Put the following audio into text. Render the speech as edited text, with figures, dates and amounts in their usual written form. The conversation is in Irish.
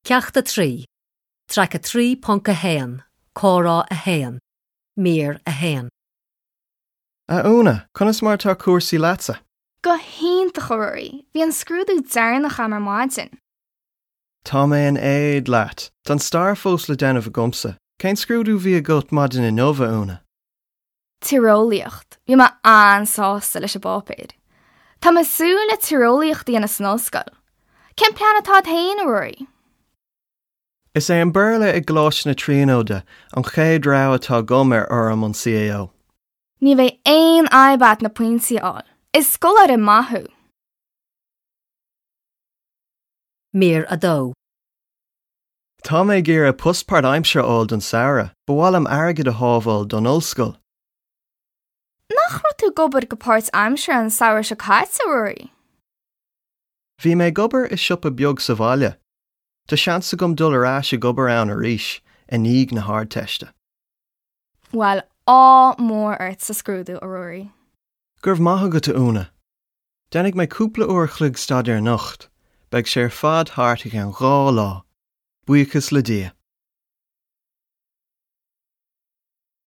Ceacht 3, Traic 3.1, Comhrá 1, Mír 1. A Úna, conas mar atá cúrsaí leatsa? Go hiontach, a Ruairí. Bhí an scrúdú deireanach agam ar maidin. Tá mé in éad leat. Tá an stair fós le déanamh agamsa. Cén scrúdú a bhí agat maidin inniu, a Úna? Tíreolaíocht. Bhí mé an-sásta leis an bpáipéar. Tá mé ag súil le tíreolaíocht a dhéanamh san ollscoil. Cén plean atá agat féin, a Ruairí? Is é an Béarla i gColáiste na Tríonóide an chéad rogha atá agam ar fhoirm an CAO. Ní bheidh aon fhadhb agat na pointí a fháil. Is scoláire maith thú. Mír 2. Tá mé ag iarraidh post páirtaimseartha a fháil don samhradh. Ba mhaith liom airgead a shábháil don ollscoil. Nach raibh tú ag obair go páirtaimseartha an samhradh seo caite, a Ruairí? Bhí mé ag obair i siopa beag sa bhaile. Tá seans agam dul ar ais ag obair ann arís i ndiaidh na hArdteiste. Bhuel, ádh mór ort sa scrúdú, a Ruairí. Go raibh maith agat, a Úna. Déanfaidh mé cúpla uair a chloig staidéir anocht. Beidh sé ar fad thart i gceann 2 lá. Buíochas le Dia.